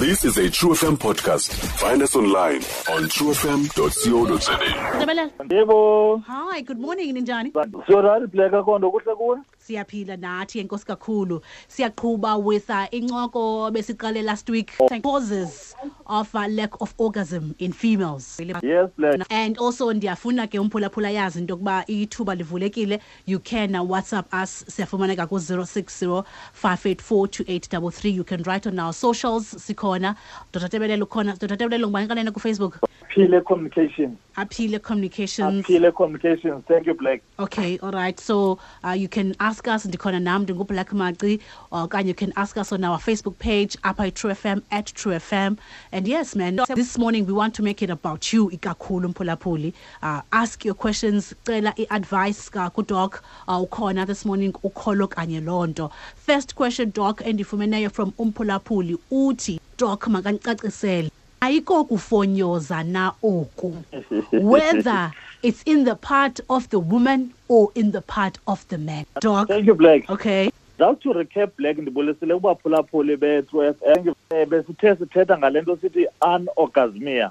This is a True FM podcast. Find us online on truefm.co.za. Ntabelelo. Yebo. Hi, good morning, ninjani? Sorry Black, akho nto kuhle kuwe? Siyaphila nathi, enkosi kakhulu. Siyaqhuba with incoko besiqale last week. Causes of lack of orgasm in females. Yes, Black. And also ndiyafuna ke umphulaphula yazi into yokuba ithuba livulekile. You can WhatsApp us, siyafumaneka ku 060 584 2833. You can write on our socials, sikhona. Dr. Tebelelo ukhona. Dr. Tebelelo, ngubani kanene ku Facebook? Aphile Communications. Aphile Communications. Aphile Communications. Thank you, Black. Okay, all right. So you can ask us, ndikhona nam, ndinguBlack Maci, okanye you can ask us on our Facebook page, apha True FM, @TrueFM. And yes, man, this morning we want to make it about you, ikakhulu mphulaphuli. Ask your questions, cela i-advice kuDoc, ukhona this morning, ukholo kanye loo nto. First question, Doc, endifumeneyo from umphulaphuli uthi, Doc, makandicacisele. Ayikokufonyoza na oku, whether it's in the part of the woman or in the part of the man, Doc? Thank you, Black. Okay. Just to recap, Black, ndibulisile kubaphulaphuli be-True FM. Besithe sithetha ngale nto sithi anorgasmia.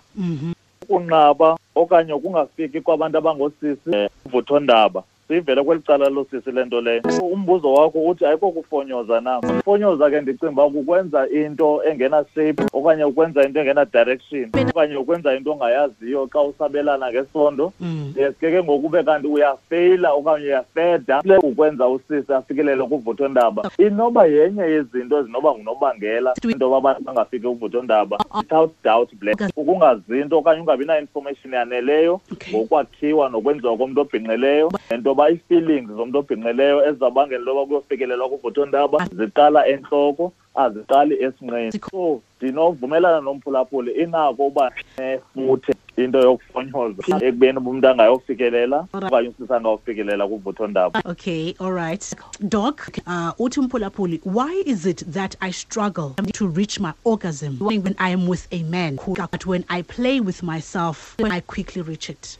Ukunqaba okanye ukungafiki kwabantu abangoosisi uvuthondaba. Siyivele kweli cala losisi le nto leyo. Umbuzo wakho uthi ayikokufonyoza na? Ufonyoza ke ndicinga uba kukwenza into engena-shape okanye ukwenza into engena-direction okanye ukwenza into ongayaziyo xa usabelana ngesondo. Yes, ke ngoku ube kanti uyafeyila okanye uyafeda ukwenza usisi afikelele kuvuthondaba. Inoba yenye yezinto ezinoba ngunobangela into yoba abantu bangafiki kuvuthondaba. Without doubt, Black, ukungazi into okanye ungabi na-information yaneleyo ngokwakhiwa nokwenziwa komntu obhinqileyo, nento yoba ii-feelings zomntu obhinqileyo ezizawubangela into yoba kuyofikelelwa kuvuthondaba ziqala entloko, aziqali esinqeni. So ndinovumelana nomphulaphuli, inako uba nefuthe into yokufonyoza ekubeni umntu angayofikelela okanye usisi angayofikelela kuvuthondaba. Okay, all right. Doc, uthi umphulaphuli, why is it that I struggle to reach my orgasm when I am with a man, but when I play with myself, I quickly reach it?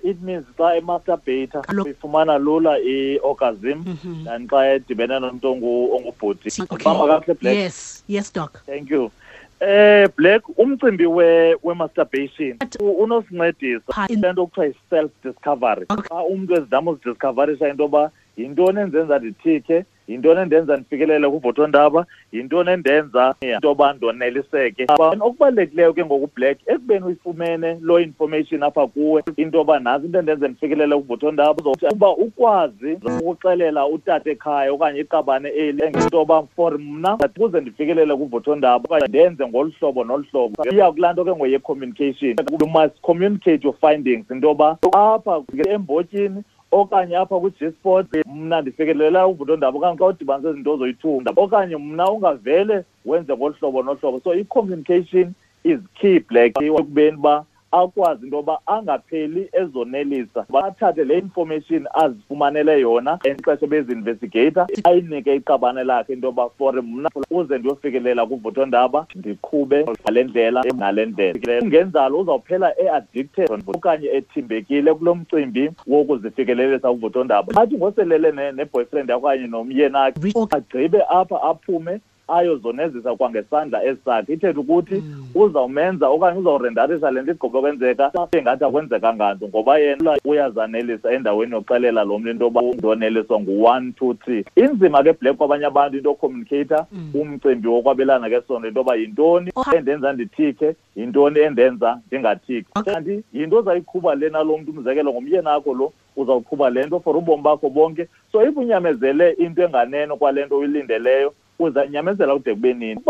It means xa emasturbate uyifumana lula i-orgasm than xa edibene nomntu ongubhuti. Bamba kakuhle, Black? Yes, Doc. Thank you. Black, umcimbi we masturbation unosincedisa into kuthiwa yi-self discovery. Xa umntu ezama uzidiscoverisha into yoba yintoni endenza ndithike, yintoni endenza ndifikelele kuvuthondaba, yintoni endenza into yoba ndoneliseke. Okubalulekileyo ke ngoku, Black, ekubeni uyifumene loo information apha kuwe into yoba nantsi into endenza ndifikelele kuvuthondaba, uba ukwazi ukuxelela utata ekhaya okanye iqabane eli into yoba for mna ukuze ndifikelele kuvuthondaba okanye ndenze ngolu hlobo nolu hlobo. Iya kulaa nto ke ngoye-communication. You must communicate your findings into yoba apha embotyini okanye apha kwi-G-spot mna ndifikelela uvuthondaba, okanye xa udibanise izinto zoyi-two, okanye mna ungavele wenze ngolu hlobo nolu hlobo. So i-communication is key, Black, ekubeni uba akwazi into yoba angapheli ezonelisa, athathe le information azifumanele yona exesha bezi-investigator, ayinike iqabane lakhe into yoba for mna uze ndiyofikelela kuvuthondaba ndiqhube ngale ndlela nale ndlela. Kungenzalo uzawuphela e-addicted okanye ethimbekile kulo mcimbi wokuzifikelelisa kuvuthondaba. Athi ngoselele ne-boyfriend yakho okanye nomyeni akhe, agqibe apha aphume ayozonezisa kwangesandla esakhe, ithetha ukuthi uzawumenza okanye uzawurendarisa le nto igqiba kwenzeka engathi akwenzekanga nto, ngoba yena uyazanelisa endaweni yoxelela lo mntu into yoba ndoneliswa ngu-one, two, three. Inzima ke, Black, kwabanye abantu into yocommunicata umcimbi wokwabelana ngesondo, into yoba yintoni endenza ndithike, yintoni endenza ndingathiki. Kanti yinto ozayiqhuba lena lo mntu, umzekelo ngumyeni akho lo, uzawuqhuba le nto for ubomi bakho bonke. So if unyamezele into enganeno kwale nto uyilindeleyo, uzanyamezela kude kube nini?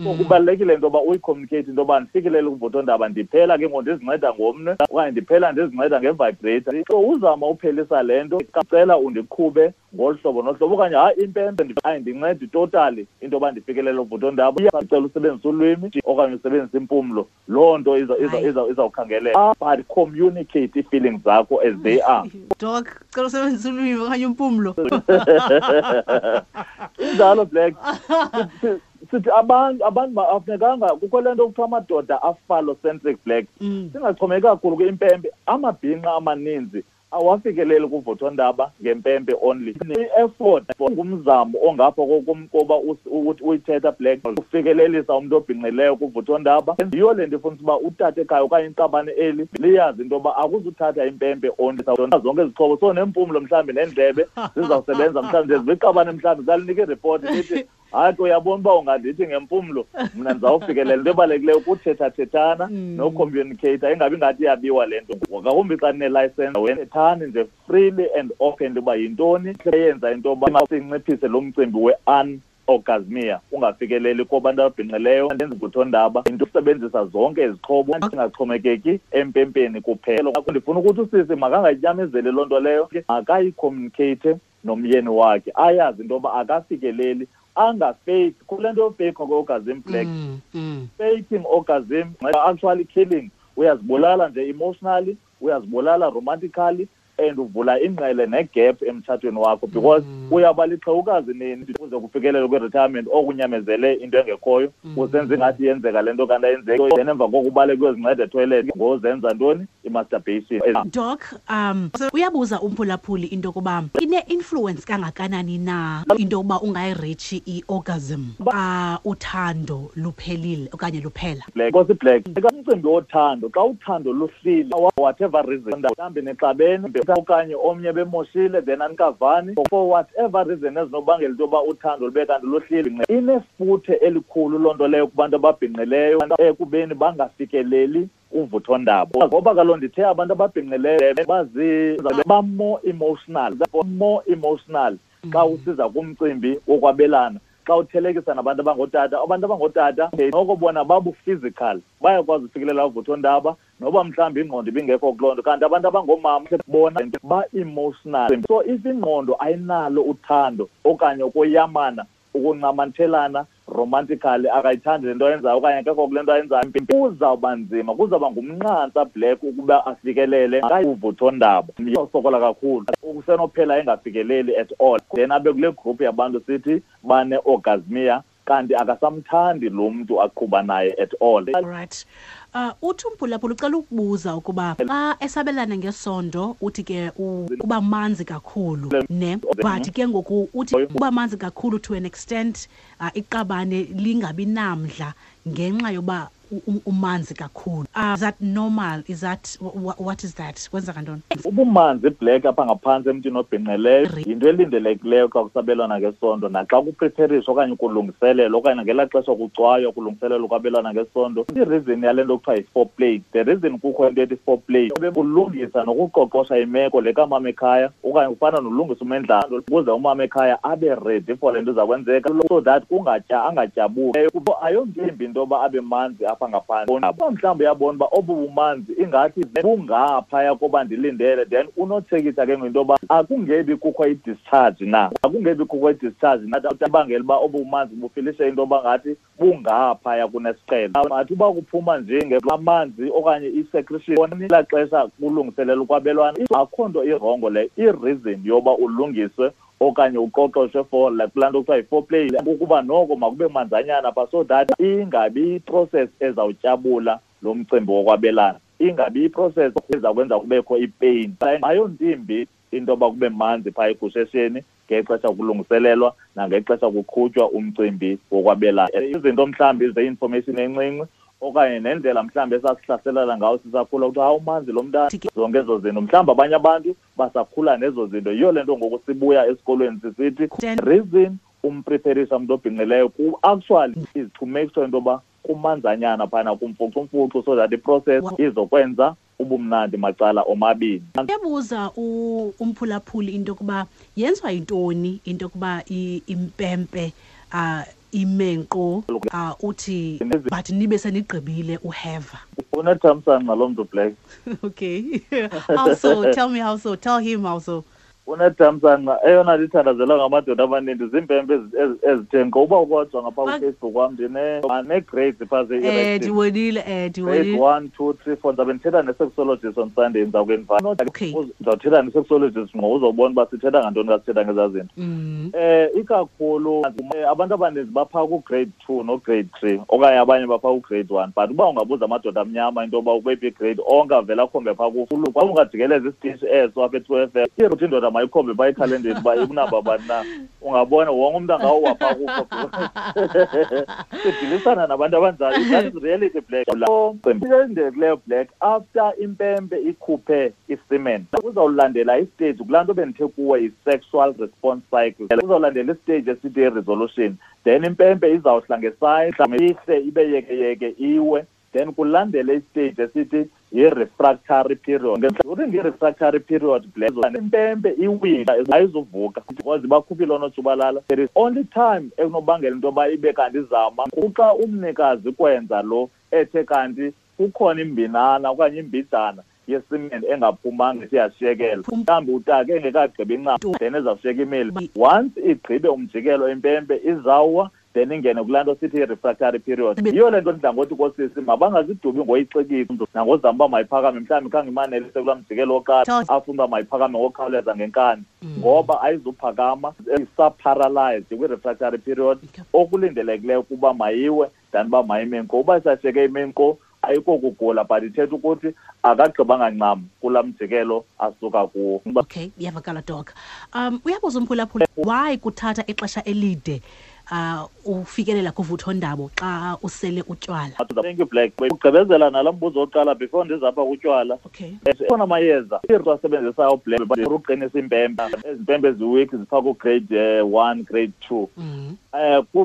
So kubalulekile into yoba uyicommunicate into yoba ndifikelele kuvuthondaba ndiphela ke ngoku ndizinceda ngomnwe okanye ndiphela ndizinceda ngevibrator. So uzama uphelisa le nto, cela undiqhube ngolu hlobo nolu hlobo, okanye hayi, impempe ayindincedi totally into yoba ndifikelele kuvuthondaba, cela usebenzise ulwimi okanye usebenzise impumlo. Loo nto izawukhangeleka, but communicate ii-feelings zakho as they are. Doc, cela usebenzise ulwimi okanye impumlo. Injalo, Black. Sithi abantu afunekanga kukho le nto kuthiwa amadoda aphallocentric, Black. Singaxhomeki kakhulu kwimpempe. Amabhinqa amaninzi Awafikeleli kuvuthondaba ngempempe only. I-effort ngumzamo ongapha koba uyithetha, Black, ufikelelisa umntu obhinqileyo kuvuthondaba. Yiyo le nto ifuna uba utata ekhaya okanye iqabane eli liyazi into yoba akuzuthatha impempe only, zonke izixhobo, so nempumlo mhlawumbi neendlebe zizawusebenza. Mhlawumbi nje ziqabane, mhlawumbi zalinika iripoti lithi, "Hayi ke, uyabona uba ungandithi ngempumlo, mna ndizawufikelela." Into ebalulekileyo kuthethathethana nocommunicate, ingabi ngathi iyabiwa le nto, ngakumbi xa ninelayisensi. Thethani nje freely and openly uba yintoni eyenza into yoba sinciphise lo mcimbi we-anorgasmia, ungafikeleli kubantu ababhinqileyo vuthondaba, into usebenzisa zonke izixhobo, ingaxhomekeki empempeni kuphela. Ndifuna ukuthi usisi makangayinyamezeli loo nto leyo, makayicommunicate nomyeni wakhe, ayazi into yoba akafikeleli, angafake kule nto yofake kwe-orgasm, Black. Faking orgasm actually killing, uyazibulala nje emotionally, uyazibulala romantically, and uvula ingqele negap emtshatweni wakho, because uyaba lixhewukazi nini kuze kufikelele kwi-retirement okunyamezele into engekhoyo, usenza ingathi iyenzeka le nto kanti ayenzeki. Then emva koko ubaleke uyozinceda etoilet ngozenza ntoni? I-masturbation. Doc, uyabuza umphulaphuli into yokuba ine-influence kangakanani na into yokuba ungayireachi i-orgasm xa uthando luphelile okanye luphela. Black, Nkosi Black, umcimbi wothando, xa uthando luhlile, whatever reason, mhlawumbi nixabene okanye omnye bemoshile, then anikavani for whatever reason ezinobangela into yoba uthando lube kanti luhlile, inefuthe elikhulu loo nto leyo kubantu ababhinqileyo ekubeni bangafikeleli uvuthondaba, ngoba kaloku ndithe abantu ababhinqileyo ba-more emotional, more emotional xa usiza kumcimbi wokwabelana xa uthelekisa nabantu abangootata. Abantu abangootata noko bona babu-physical, bayakwazi ufikelela uvuthondaba noba mhlawumbi ingqondo ibingekho kuloo nto, kanti abantu abangoomama bona ba-emotional. So if ingqondo ayinalo uthando okanye ukoyamana, ukuncamanthelana romantically, akayithandi le nto ayenzayo okanye akekho kule nto ayenzayo, kuzawuba nzima, kuzawuba ngumnqantsa, Black, ukuba afikelele uvuthondaba. Usokola kakhulu, usenophela engafikeleli at all, then abe kule group yabantu sithi bane-orgasmia, kanti akasamthandi lo mntu aqhuba naye at all. Right. Uthi umphulaphula ucela ukubuza ukuba xa esabelana ngesondo, uthi ke uba manzi kakhulu ne, but ke ngoku uthi uba manzi kakhulu to an extent iqabane lingabi namdla ngenxa yoba umanzi kakhulu. Is that normal? Is that what is that? Kwenzeka ntoni? Ubumanzi, Black, apha ngaphantsi emntwini obhinqileyo yinto elindelekileyo xa kusabelwana ngesondo naxa kupreparishwa okanye kulungiselelwa okanye ngelaa xesha kucwaywa kulungiselelwa ukwabelana ngesondo. I-reason yale nto kuthiwa yi-foreplay, the reason kukho into ethi foreplay, kulungisa nokuqoqosha imeko le kamama ekhaya, okanye kufana nolungisa umendlalo ukuze umama ekhaya abe ready for le nto iza kwenzeka, so that kungatya angatyabuki. Ayonto imbi into yoba abe manzi apha ngaphantsi. Uba mhlawumbi uyabona uba obu bumanzi ingathi bungaphaya koba ndilindele, then unotshekisha ke ngento yoba akungebi kukho i-discharge na, akungebi kukho i-discharge na ibangela uba obu bumanzi bufilishe into yoba ngathi bungaphaya kunesiqhelo. Athi uba kuphuma nje amanzi okanye i-secretion elaa xesha kulungiselela ukwabelwana, akho nto i-wrong leyo. I-reason yoba ulungiswe okanye uqoqoshwe for like kulaa nto kuthiwa yi-foreplay ukuba noko makube manzanyana pha, so that ingabi iprocess ezawutyabula lo mcimbi wokwabelana, ingabi iprocess eza kwenza kubekho ipain. Ayonto imbi into yoba kube manzi phaa egushesheni ngexesha kulungiselelwa nangexesha kuqhutywa umcimbi wokwabelana. Izinto mhlawumbi ze-information encinci okanye nendlela mhlawumbi esasihlaselana ngawo sisakhula, kuthiwa, "Hawu, umanzi lo mntana," zonke ezo zinto, mhlawumbi abanye abantu basakhula nezo zinto. Yiyo le nto ngoku sibuya esikolweni sisithi reason umpreferisha umntu obhinqileyo actually is to make sure into yoba kumanzanyana phana, kumfucumfucu, so that iprocess izokwenza ubumnandi macala omabini. Uyabuza umphulaphuli into yokuba yenziwa yintoni into yokuba impempe ime nkqo, uthi but nibe senigqibile uheva. Unethamsanqa loo mntu, Black. Okay, how so? Tell me how so. Tell him how so. Unethamsanqa, eyona ndithandazela ngamadoda amaninzi ziimpempe ezithe nkqo. Uba ukodwa ngapha kuFacebook wam ndine-grades phaa ze-erection. Ndibonile, ndibonile. Grade 1, 2, 3, 4. Ndizabe ndithetha ne-sexologist on Sunday, ndiza kuinvite. Ndizawuthetha ne-sexologist ngqo, uzobona uba sithetha ngantoni xa sithetha ngezaa zinto. Ikakhulu abantu abaninzi baphaa ku-grade 2 no-grade 3, okanye abanye baphaa ku-grade 1. But uba ungabuza amadoda amnyama into yoba ukweyiphi igrade, onke avele akhombe phaa ku-full. Xa ungajikeleza isitishi eso apha e-True FM, ithi indoda mayikhombe phaa ekhalendeni uba ikunamba bani na, ungabona wonke umntu angawuwa phaa kuko. Sidilisana nabantu abanjalo. That is reality, Black. Kuleyo Black, after impempe ikhuphe isemen, uzawulandela istage kulaa nto bendithe kuwe yi-sexual response cycle. Uzawulandela istage esithi i-resolution. Then impempe izawuhla ngesandla, ihle ibe yekeyeke iwe. Then kulandele istage esithi yi-refractory period. During i-refractory period, Black, impempe iwile, ayizuvuka because bakhuphile oonotshubalala. There is only time ekunobangela into yoba ibe kanti izama kuxa umnikazi kwenza lo ethe kanti kukhona imbinana okanye imbijana yesimende engaphumanga isiyashiyekela. Mhlawumbi utake engekagqibi incam, then izawushiyeka imile. Once igqibe umjikelo impempe izawuwa, then ingene kulaa nto sithi i-refractory period. Yiyo le nto ndidla ngothi koosisi mabangazidubi ngoyixikisa nangozama uba mayiphakame, mhlawumbi khange imanelise kulaa mjikelo wokuqala, afune uba mayiphakame ngokukhawuleza ngenkani, ngoba ayizuphakama, isa-paralyzed kwi-refractory period. Okulindelekileyo ukuba mayiwe than uba mayime nkqo. Uba isashiyeke ime nkqo ayikokugula, but ithetha ukuthi akagqibanga ncam kulaa mjikelo asuka kuwo. Okay, iyavakala, Doc. Uyabuza umphulaphula, why kuthatha ixesha elide ufikelela kuvuthondaba xa usele utywala? Thank you, Black. Ugqibezela nalo mbuzo wokuqala before ndizapha kutywala. Khona amayeza asebenzisayo, Black, uqinisa impempe. Ezi mpempe eziweak ziphaa ku-grade 1, grade 2.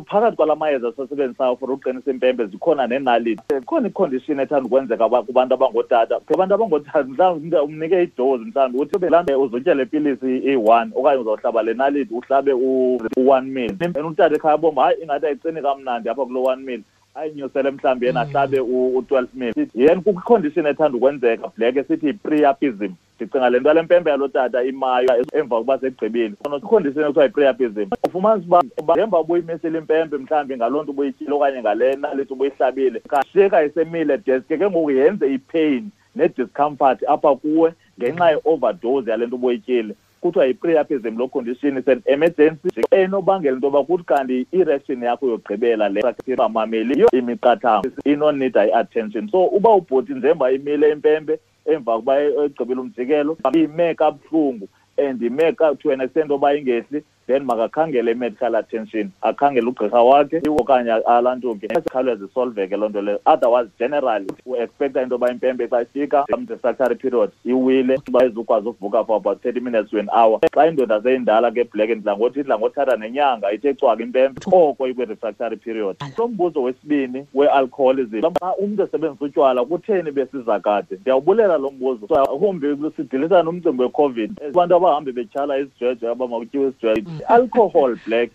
Phakathi kwala mayeza siwasebenzisayo for uqinisa impempe zikhona neenaliti. Ikhona icondition ethanda ukwenzeka kubantu abangootata. Abantu abangootata mhlawumbi umnike idose, mhlawumbi uthi laa nto uzotya le pilisi iyi-1 okanye uzawuhlaba le naliti uhlabe u-1 mil. And utata ekhaya abomba, hayi, ingathi ayiqini kamnandi apha kulo 1 mil, ayinyusele mhlawumbi yena ahlabe u-12 mil. Yena kukho icondition ethanda ukwenzeka, Black, esithi yi-priapism. Ndicinga le nto yale mpempe yalo tata imayo emva kokuba segqibile. Icondition ekuthiwa yi-priapism. Ufumanisa uba ngemva ubuyimisile impempe mhlawumbi ngaloo nto ubuyityile okanye ngale naliti ubuyihlabile, kashiyeka isemile deske ke ngoku yenze ipain ne-discomfort apha kuwe ngenxa ye-overdose yale nto ubuyityile. Kuthiwa yi-priapism loo condition, is an emergency enobangela into yoba kuthi kanti i-erection yakho yokugqibela le bamameli imiqathango inonida i-attention. So uba ubhuti njengoba imile impempe emva kokuba egqibile umjikelo, ime kabuhlungu and ime to an extent oba ingehli, then makakhangele i-medical attention, akhangele ugqirha wakhe okanye alantuke, ikhawuleze isolveke loo nto leyo. Otherwise generally u-expecta into yoba impempe xa ifika refractory period iwile, uba izukwazi uvuka for about 30 minutes to an hour. Xa indoda seyindala ke, Black, ndidla ngothi idla ngothatha nenyanga ithe cwaka impempe oko ikwi-refractory period. Lo mbuzo wesibini we-alcoholism, xa umntu esebenzisa utywala kutheni besiza kade? Ndiyawubulela lo mbuzo. Humbi sidilisana nomcimbi weCOVID, abantu abahambe betyhala isijeje aba makutyiwe isijeje. I-alcohol, Black,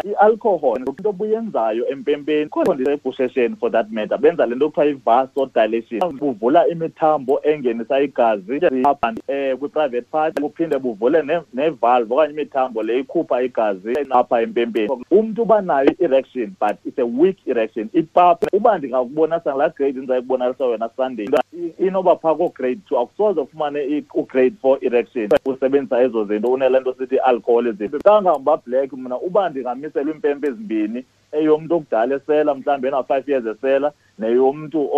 i-alcohol into obuyenzayo empempeni ebushesheni, for that matter, benza le nto kuthiwa i-vasodilation, buvula imithambo engenisa igazi apha kwi-private part, buphinde buvule nevalve okanye imithambo le ikhupha igazi apha empempeni. Umntu uba nayo i-erection, but it's a weak erection. Ipapa uba ndingakubonisa ngalaa grade ndizayikubonisa wena Sunday, inoba phaa koo-grade 2, akusoze ufumane u-grade 4 erection usebenzisa ezo zinto unele nto sithi alcoholism. Kangangoba, Black, mna uba ndingamiselwa iimpempe ezimbini, eyomntu okudala esela mhlawumbi ena-5 years esela neyomntu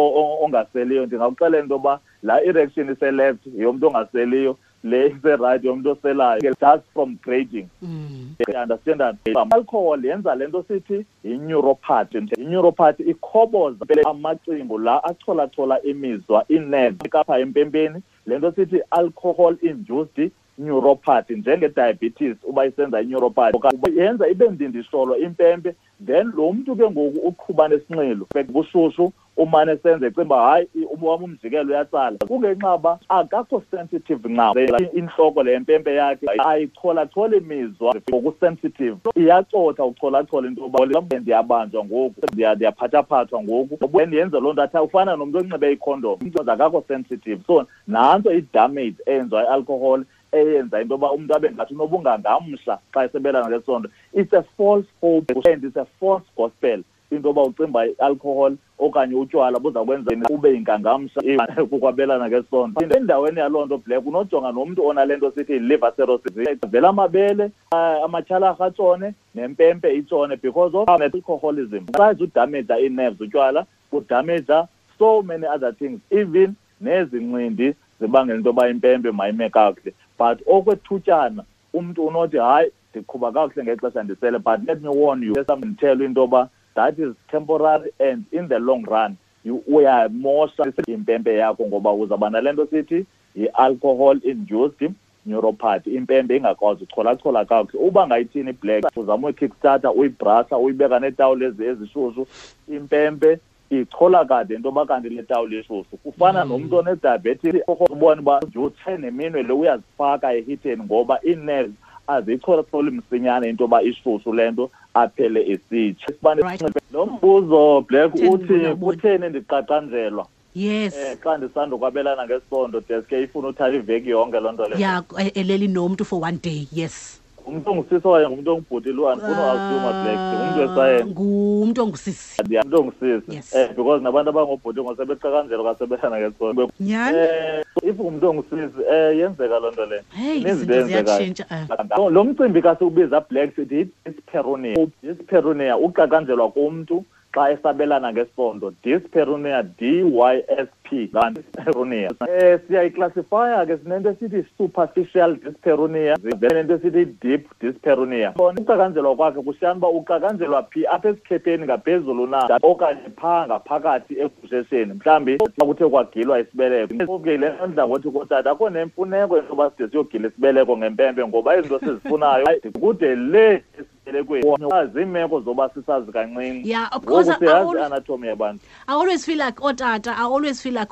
ongaseliyo, ndingakuxelela into yoba laa erection ise-left yeyomntu ongaseliyo, le ise-right yomntu oselayo, just from grading. You understand that? Alcohol yenza le nto sithi yi-neuropathy. I-neuropathy ikhoboza amacingo la acholachola imizwa, inerve apha empempeni. Le nto sithi alcohol induced neuropathy, njenge-diabetes uba isenza i-neuropathy, yenza ibe ndindisholo impempe. Then lo mntu ke ngoku uqhuba nesinxilo bushushu, umane senze ecinga uba hayi wam umjikelo uyatsala, kungenxa uba akakho sensitive ncam. Intloko le mpempe yakhe ayicholachola imizwa ngokusensitive, iyacotha ucholachola into yoba ndiyabanjwa ngoku, ndiyaphathaphathwa ngoku, and yenze loo nto athi ufana nomntu onxibe ikhondom, akakho sensitive. So nantso i-damage eyenziwa i-alcohol eyenza into yoba umntu abe ngathi unobungangamsha xa esebelana ngesondo. It's a false hope and it's a false gospel into yoba ucimba i-alcohol okanye utywala buza kwenza ube yingangamsha kukwabelana ngesondo. Endaweni yaloo nto, Black, unojonga nomntu onale nto sithi liver cirrhosis, vela amabele, amatyhalarha atshone nempempe itshone because of alcoholism. Besides udamaja ii-nerves utywala, kudamaja so many other things, even nezincindi zibangela into yoba impempe mayime kakuhle. But okwethutyana umntu unothi hayi, ndiqhuba kakuhle ngexesha ndisele, but let me warn you, ndithele into yoba that is temporary and in the long run uyamosha impempe yakho ngoba uzawuba nale nto sithi yi-alcohol induced neuropathy, impempe ingakwazi ucholachola kakuhle. Uba ngayithini, Black, uzama uyi-kickstarter, uyibrasha, uyibeka neetawuli ezishushu, impempe ichola kade into yoba kanti le tawuli ishushu. Kufana nomntu one-diabetes, ubone uba utshe neminwe le uyazifaka ehitheni ngoba ii-nerves aziyicholacholi msinyane into yoba ishushu le nto, aphele esitsha. Lo mbuzo, Black, uthi kutheni ndiqaqanjelwa xa ndisandokwabelana ngesondo, deske ifuna uthatha iveki yonke loo nto leyo. Yeah, eleli nomntu for one day, yes. Ngumntu ongusisi okanye ngumntu ongubhuti lo? Andifuna u-assume, Black, ngumntu wesayensi. Ngumntu ongusisi. Ngumntu ongusisi. Yes. Because nabantu abangobhuti ngosebeqakanjelwa kasebelana ngesondo. Nyhani? If ngumntu ongusisi, yenzeka loo nto leyo. Hey, Ininzi izinto into eyenzekayo. ziyatshintsha. Lo mcimbi kasiwubiza, Black, sithi dyspareunia. Dyspareunia, uqakanjelwa komntu xa esabelana ngesondo. Dyspareunia, DYSP, dyspareunia. Siyayiclassifya ke, sinento esithi superficial dyspareunia, sinento esithi deep dyspareunia. Uqakanjelwa kwakhe kushiyana uba uqakanjelwa phi, apha esikhepheni ngaphezulu na okanye phaa ngaphakathi egushesheni, mhlawumbi xa kuthe kwagilwa isibeleko. Okay, le nto ndidla ngothi kootata akho nemfuneko into yoba side siyogila isibeleko ngempempe, ngoba izinto sizifunayo kude le esibelekweni, ziimeko zoba sisazi kancinci. Yeah, of course. Ngoku siyazi i-anatomy yabantu. I always feel like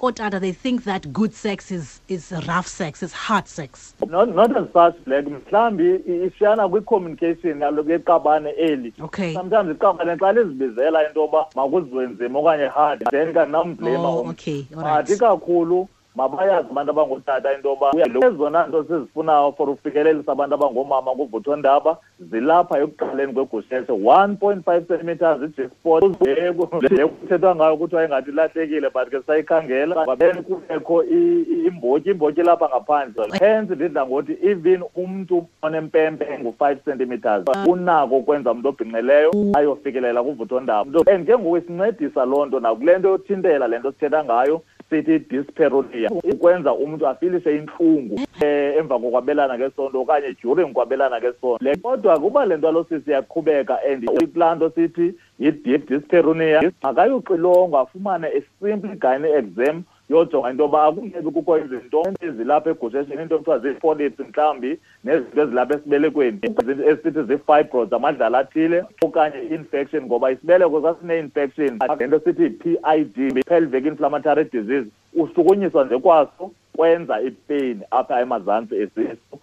ootata, they think that good sex is rough sex, is hard sex. Not as such, Black. Mhlawumbi ishiyana kwi-communication yalo yeqabane eli. Sometimes iqabane xa lizibizela into yoba makuziwe nzima okanye hard, then kanamblame. Oh, okay, all right. But ikakhulu mabayazi abantu abangootata into yoba ezona nto sizifunayo for ufikelelisa abantu abangoomama kuvuthondaba zilapha ekuqaleni kwegusheshe, 1.5 centimeters, i-G-spot le kuthethwa ngayo kuthiwa ingathi ilahlekile, but ke sayikhangela, then kubekho imbotyi lapha ngaphandle. Hence ndidla ngothi even umntu onempempe engu-5 centimeters unako ukwenza umntu obhinqileyo ayofikelela kuvuthondaba. And ke ngoku isincedisa loo nto nakule nto yothintela le nto sithetha ngayo sithi dyspareunia, ukwenza umntu afilise intlungu emva kokwabelana ngesondo okanye during kwabelana ngesondo. Kodwa kuba le nto alosisi iyaqhubeka and kulaa nto sithi yi-deep dyspareunia, makayoxilongwa afumane a simple gynae exam yojonga into yoba akungebi kukho izinto ezilapha egushesheni, into ekuthiwa zii-polyps mhlawumbi, nezinto ezilapha esibelekweni esithi zii-fibroids, amadlala athile, okanye i-infection, ngoba isibeleko sasine-infection, le nto sithi yi-PID, pelvic inflammatory disease. Ushukunyiswa nje kwaso kwenza ipeyini apha emazantsi esisu.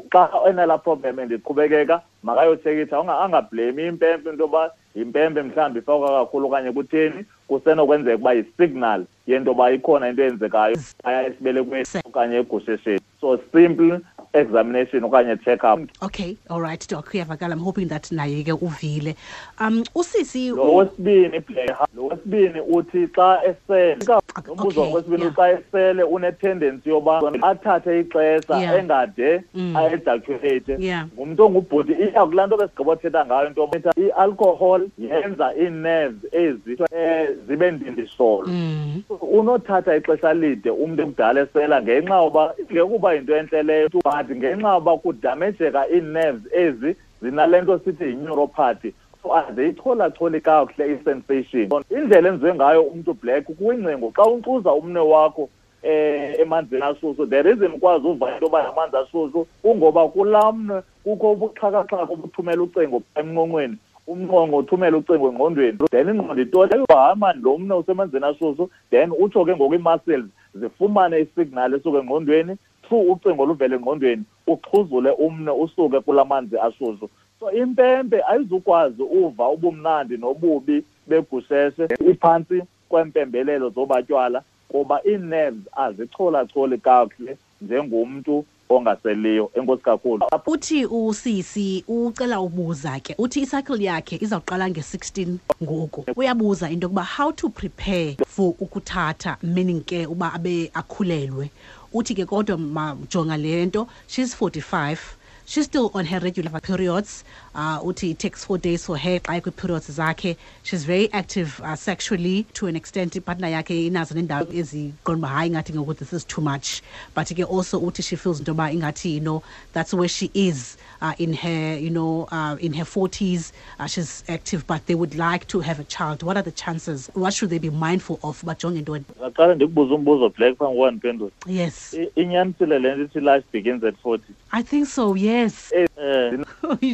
Xa enalaa problem endiqhubekeka, makayotshekitsha, angablemi impempe into yoba yimpempe mhlawumbi ifakwa kakhulu okanye kutheni. Kusenokwenzeka ukuba yi-signal yento yoba ikhona into eyenzekayo phaya esibelekweni okanye egushesheni. So simple examination okanye check-up. Okay, all right, Doc, uyavakala. I'm hoping that naye ke uvile. Usisi Lo wesibini, Black, lo wesibini uthi xa esele, lo mbuzo wesibini, xa esele une-tendency yoba athathe ixesha engade a-ejaculate. Ngumntu ongubhuti, iya kulaa nto besigqiba othetha ngayo, into yoba i-alcohol yenza ii-nerves ezi zibe ndindisolo. Unothatha ixesha lide umntu ekudala esela ngenxa yoba ingekuba yinto entle leyo, but ngenxa yoba kudamejeka ii-nerves ezi zinale nto sithi yi-neuropathy. So aziyicholacholi kakuhle i-sensation. Indlela enziwe ngayo umntu, Black, kwingcingo, xa unkcuza umnwe wakho emanzini ashushu, the reason ukwazi uva into yoba amanzi ashushu kungoba kulaa mnwe kukho ubuxhakaxhaka obuthumela ucingo emnqonqweni, umnqonqo uthumela ucingo engqondweni, then ingqondo itole, hayi mani, lo mnwe usemanzini ashushu, then utsho ke ngoku ii-muscles zifumane isignal esuka engqondweni through ucingo oluvela engqondweni, uxhuzule umnwe usuke kulaa manzi ashushu. So impempe ayizukwazi uva ubumnandi nobubi begusheshe iphantsi kwempembelelo zobatywala, kuba ii-nerves azicholacholi kakuhle njengomntu ongaseliyo. Enkosi kakhulu. Uthi usisi ucela ubuza ke, uthi icycle yakhe izawuqala nge-16 ngoku. Uyabuza into yokuba how to prepare for ukuthatha, meaning ke uba abe akhulelwe. Uthi ke kodwa majonga le nto, she's 45, she's still on her regular periods. Uthi it takes 4 days for her xa kwi-periods zakhe. She's very active sexually to an extent. Ipartner yakhe inazo nendawo eziqonda uba hayi ingathi ngoku this is too much. But ke also uthi she feels into yoba ingathi, you know, that's where she is in her, you know, in her 40s. She's active, but they would like to have a child. What are the chances? What should they be mindful of? Bajonge ntoni? Aqale ndikubuze umbuzo, Black, phambi kokuba ndiphendule. Yes. Inyanisile le nto ithi life begins at 40? I think so, yes.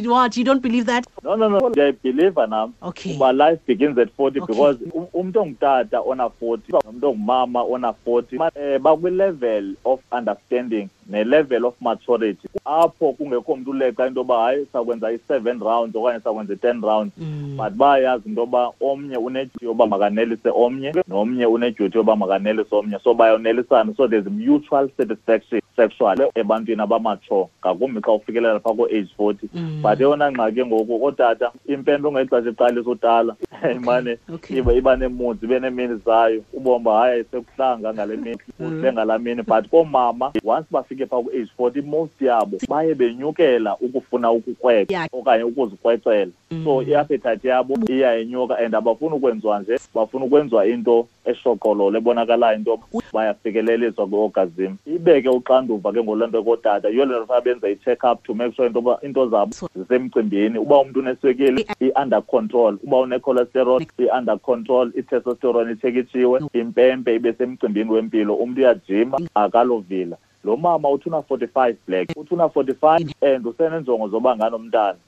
What, you don't believe that? No. Ndiyayibhiliva nam. Okay. Uba life begins at 40. Okay. Because umntu ongutata ona-40 nomntu ongumama ona-40 bakwi-level of understanding ne-level of maturity apho kungekho mntu uleqa into yoba hayi sakwenza i-7 rounds okanye sakwenza i-10 rounds. But bayayazi into yoba omnye unedyuti yoba makanelise omnye nomnye unedyuti yoba makanelise omnye, so bayonelisana. So there's mutual satisfaction sexual ebantwini abamatsho, ngakumbi xa ufikelela phaa ko-age 40. But eyona ngxaki ngoku ootata, impempe ngexesha iqalisa utala imane iba neemudi, ibe neemini zayo, ubomi uba hayi sekuhlanga ngale mini, kuhle ngalaa mini. But koomama once bafike phaa ku-age 40, most yabo baye benyukela ukufuna ukukrweca okanye ukuzikrwecela. So i-appetite yabo iyayenyuka and abafuni ukwenziwa nje, bafuna ukwenziwa into eshoqololo ebonakalayo into bayafikeleliswa kwi-orgasm. Ibeke uxanduva ke ngoloo nto kootata. Yiyo le nto funeka benze i-check up to make sure into yoba into zabo zisemcimbini. Uba umntu uneswekile i-under control, uba une-cholesterol i-under control, i-testosterone itshekitshiwe, impempe ibe semcimbini wempilo, umntu uyajima akalovila. Lo mama uthi una-45, Black, uthi una-45 and usenenjongo zoba nganomntana.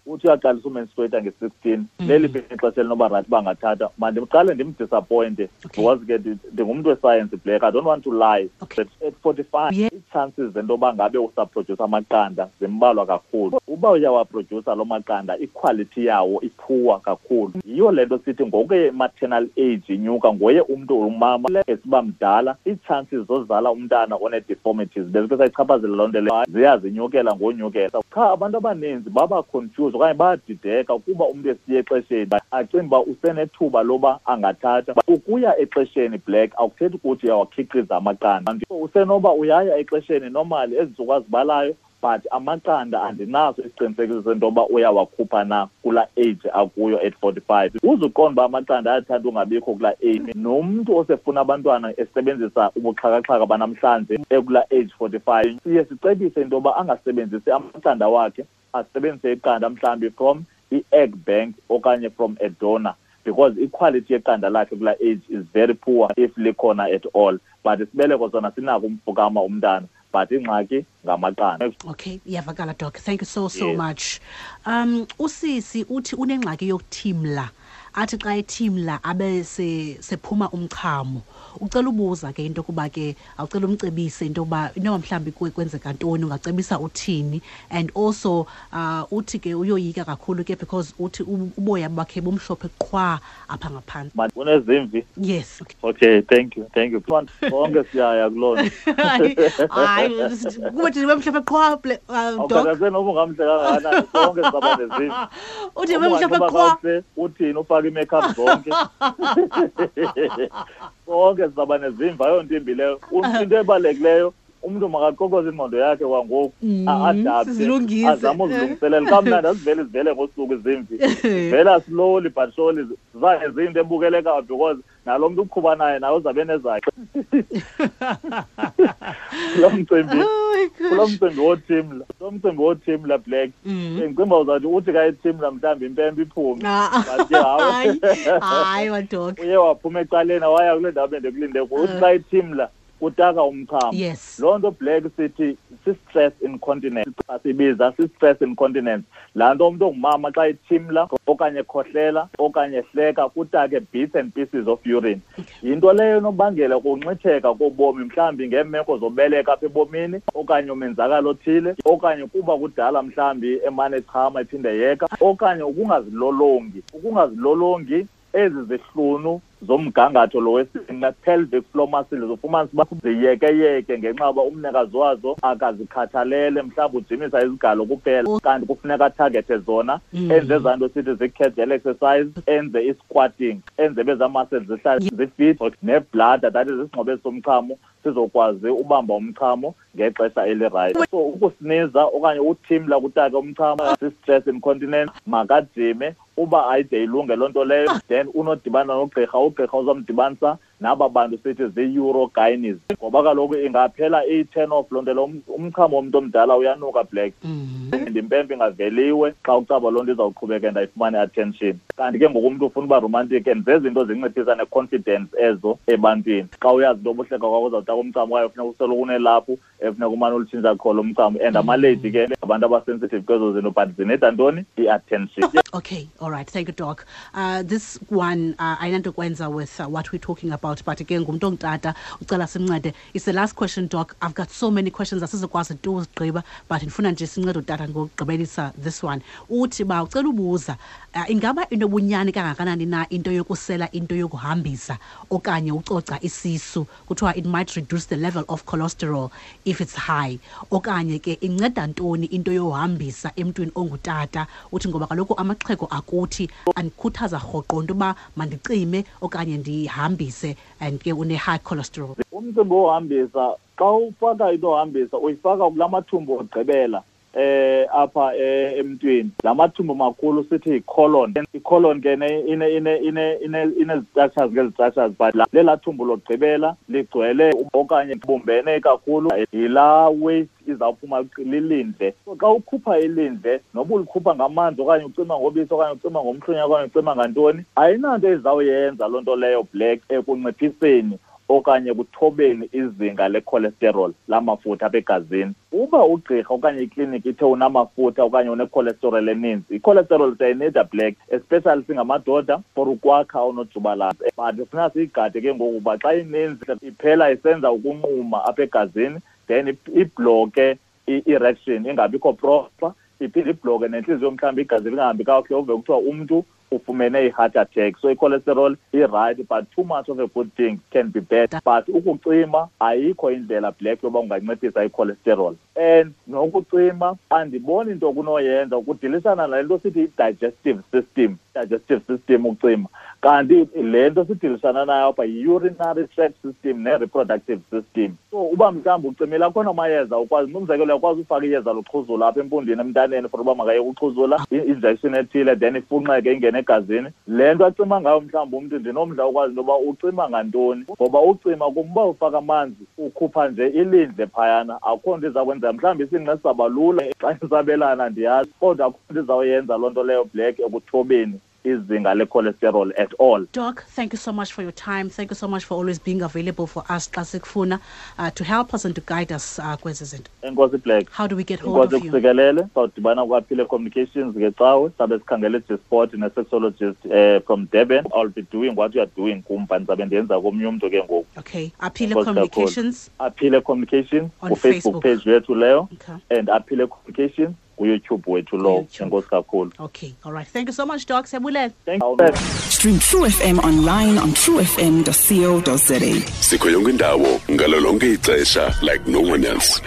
Uthi uyaqalisa umenstruate nge-16. Leliphi ixesha elinoba rayithi bangathatha? Mandiqale ndimdisappointe because ke ndingumntu wesayensi, Black, I don't want to lie. At 45 ii-chances zento yoba ngabe usaprodyusa amaqanda zimbalwa kakhulu. Uba uyawaprodyusa loo maqanda, ikhwalithi yawo iphuwa kakhulu. Yiyo le nto sithi ngokuye i-maternal age inyuka, ngoye umntu umama esiba mdala, ii-chances zozala umntana one-deformities bezike sayichaphazela loo nto leyo ziyazinyukela ngonyukela. Qha abantu abaninzi baba confused okanye bayadideka kuba umntu esiya exesheni acinga uba usenethuba loba angathatha. Ukuya exesheni, Black, akuthethi ukuthi uyawakhiqiza amaqanda. Usenoba uyaya exesheni normally ezi ntsuku azibalayo, but amaqanda andinaso isiqinisekiso sento yoba uyawakhupha na kulaa age akuyo at 45. Uzuqonda uba amaqanda ayathanda ungabikho kulaa age. Nomntu osefuna abantwana esebenzisa ubuxhakaxhaka banamhlanje ekulaa age 45, siye sicebise into yoba angasebenzisi amaqanda wakhe, asebenzise iqanda mhlawumbi from i-egg bank okanye from a donor, because iquality yeqanda lakhe kulaa age is very poor if likhona at all. But isibeleko sona sinako umfukama umntana, but ingxaki ngamaqanda. Okay, iyavakala, Doc. Thank you so much. Usisi uthi unengxaki yokuthimla. Athi xa ethimla abe sephuma umchamo. Ucela ubuza ke into yokuba ke awucela umcebise into yokuba inoba mhlawumbi kwenzeka ntoni, ungacebisa uthini. And also uthi ke uyoyika kakhulu ke because uthi uboya bakhe bumhlophe qhwa apha ngaphandle. Unezimvi? Yes. Okay, thank you. Thank you. Bonke siyaya kuloo nto. Hayi, kuba thina bemhlophe qhwa, Doc. Okay, noba ungamhle kangakanani, sonke sizaba nezimvi. Uthi bemhlophe qhwa. Uthini ufake i-makeup zonke? Sonke sizaba nezimvi, ayonto imbi leyo. Into ebalulekileyo, umntu makaqokoze ingqondo yakhe kwangoku, a-adapte, sizilungise. Azame uzilungiselela. Kamnandi azivele zivele ngosuku izimvi. Zivela slowly but surely, zaye ziyinto ebukelekayo because nalo mntu uqhuba naye naye uzabe nezakhe. Lo mcimbi, Oh my gosh. kulo mcimbi wothimla, lo mcimbi wothimla, Black. Ndicinga uzawuthi uthi ka ethimla mhlawumbi impempe iphume. But ke hayi. Hayi, hayi, Doc. Uye waphuma ecaleni waya kule ndawo bendikulinde kuyo. Uthi xa ethimla utaka umchamo. Loo nto, Black, sithi si-stress incontinence. Sibiza si-stress incontinence. Laa nto umntu ongumama xa ethimla okanye ekhohlela okanye ehleka kutake bits and pieces of urine. Yinto leyo enobangela ukunxitheka kobomi, mhlawumbi ngeemeko zobeleka apha ebomini okanye umenzakalo othile, okanye kuba kudala mhlawumbi emane echama ephinde yeka, okanye ukungazilolongi. Ukungazilolongi ezi zihlunu Zomgangatho lo wesinqe, pelvic floor muscles, ufumanisa uba ziyekeyeke ngenxa yoba umnikazi wazo akazikhathalele, mhlawumbi ujimisa izigalo kuphela, kanti kufuneka atargethe zona. Enze ezaa nto sithi zii-Kegel exercise, enze i-squatting, enze bezaa muscles zihlale zifit, nebladder, that is isingxobo esomchamo, sizokwazi ubamba umchamo ngexesha elirayithi. So ukusiniza okanye uthimla kutake umchamo si-stress incontinence. Makajime uba ayide ilunge loo nto leyo, then unodibana nogqirha. Ugqirha uzomdibanisa naba bantu sithi zii-urogynes, ngoba kaloku ingaphela iyi-turn off loo nto leyo. Umchamo womntu omdala uyanuka, Black, and impempe ingaveliwe xa ucaba loo nto izawuqhubeka and ayifumane attention. Kanti ke ngoku umntu ufuna uba romantic, and zezinto zinciphisa ne-confidence ezo ebantwini. Xa uyazi into yoba uhleka kwakho uzawutaka umchamo kwaye funeka usoloko unelaphu efuneka umane ulutshintsha qho lo mchamo, and amalady ke abantu abasensitive kwezo zinto, but zineda ntoni? I-attention. Okay, all right. Thank you, Doc. This one, ayinanto kwenza with what we're talking about, but again, ngumntu ongutata ucela simncede. It's the last question, Doc. I've got so many questions, asizokwazi tu uzigqiba, but ndifuna nje sincede utata ngokugqibelisa this one. Uthi ba ucela ubuza, ingaba inobunyani kangakanani na into yokusela into yokuhambisa okanye ucoca isisu? Kuthiwa it might reduce the level of cholesterol if it's high. Okanye ke inceda ntoni into yohambisa emntwini ongutata? Uthi ngoba kaloku amaxhego akuthi andikhuthaza rhoqo into yoba mandicime okanye ndihambise, and ke une-high cholesterol. Umcimbi wohambisa, xa ufaka into yohambisa uyifaka kula mathumbu ogqibela apha emntwini, la mathumbu makhulu sithi yi-colon. I-colon ke ine-structures ngezi-structures, but lelaa thumbu lokugqibela ligcwele okanye bumbene kakhulu, yilaa waste izawuphuma lilindle. So xa ukhupha ilindle, noba ulikhupha ngamanzi okanye ucima ngobisi okanye ucima ngomhlunya okanye ucima ngantoni, ayinanto ezawuyenza loo nto leyo, Black, ekunciphiseni okanye kuthobeni izinga lecholesterol, lamafutha apha egazini. Uba ugqirha okanye ikliniki ithe unamafutha okanye unecholesterol eninzi, icholesterol siyayinida, Black, especially singamadoda, for ukwakha onojubalala, but funeka siyigade ke ngoku uba xa ininzi iphela isenza ukunquma apha egazini, then ibhlokhe i-erection ingabikho proper, iphinde ibhlokhe nentliziyo, mhlawumbi igazi lingahambi kakuhle, uve kuthiwa umntu ufumene i-heart attack. So i-cholesterol i-right, but too much of a good thing can be bad. But ukucima, ayikho indlela, Black, yoba unganciphisa i-cholesterol, and nokucima andiboni into kunoyenza ukudilisana nale nto sithi i-digestive system. Digestive system ukucima, kanti le nto sidilisana nayo apha yi-urinary tract system ne-reproductive system. So uba mhlawumbi ucimile, akhona amayeza ukwazi, umzekelo, uyakwazi ufaka iyeza loxhuzula apha empundwini emntaneni for uba makayeke uxhuzula, i-injection ethile, then ifunxeke ingene egazini. Le nto acima ngayo mhlawumbi umntu, ndinomdla ukwazi into yoba ucima ngantoni, ngoba ucima kumba ufaka amanzi, ukhupha nje ilindle phayana, akukho nto iza kwenzeka. Mhlawumbi isinqe sizawuba lula xa isabelana, ndiyazi, kodwa akukho nto izawuyenza loo nto leyo, Black, ekuthobeni izinga le-cholesterol at all. Doc, thank you so much for your time. Thank you so much for always being available for us xa sikufuna, to help us and to guide us kwezi zinto. Enkosi, Black. How do we get hold Inkosi of you? Kusikelele. Sawudibana kwaphile Communications ngecawe, sabe sikhangele G-Sport ne-sexologist from Durban. I'll be doing what you are doing kum, but ndizabe ndiyenza komnye umntu ke ngoku. Okay. Aphile Enkosi kakhulu. Communications. Aphile Communications On ku-Facebook Facebook. page yethu leyo. Okay. And Aphile Communications kuYouTube wethu lo. YouTube. Enkosi kakhulu. Okay. All right. Thank you so much, Doc. Siyabulela. Thank you. Stream True FM online on truefm.co.za. Sikho yonke indawo ngalo lonke ixesha like no one else.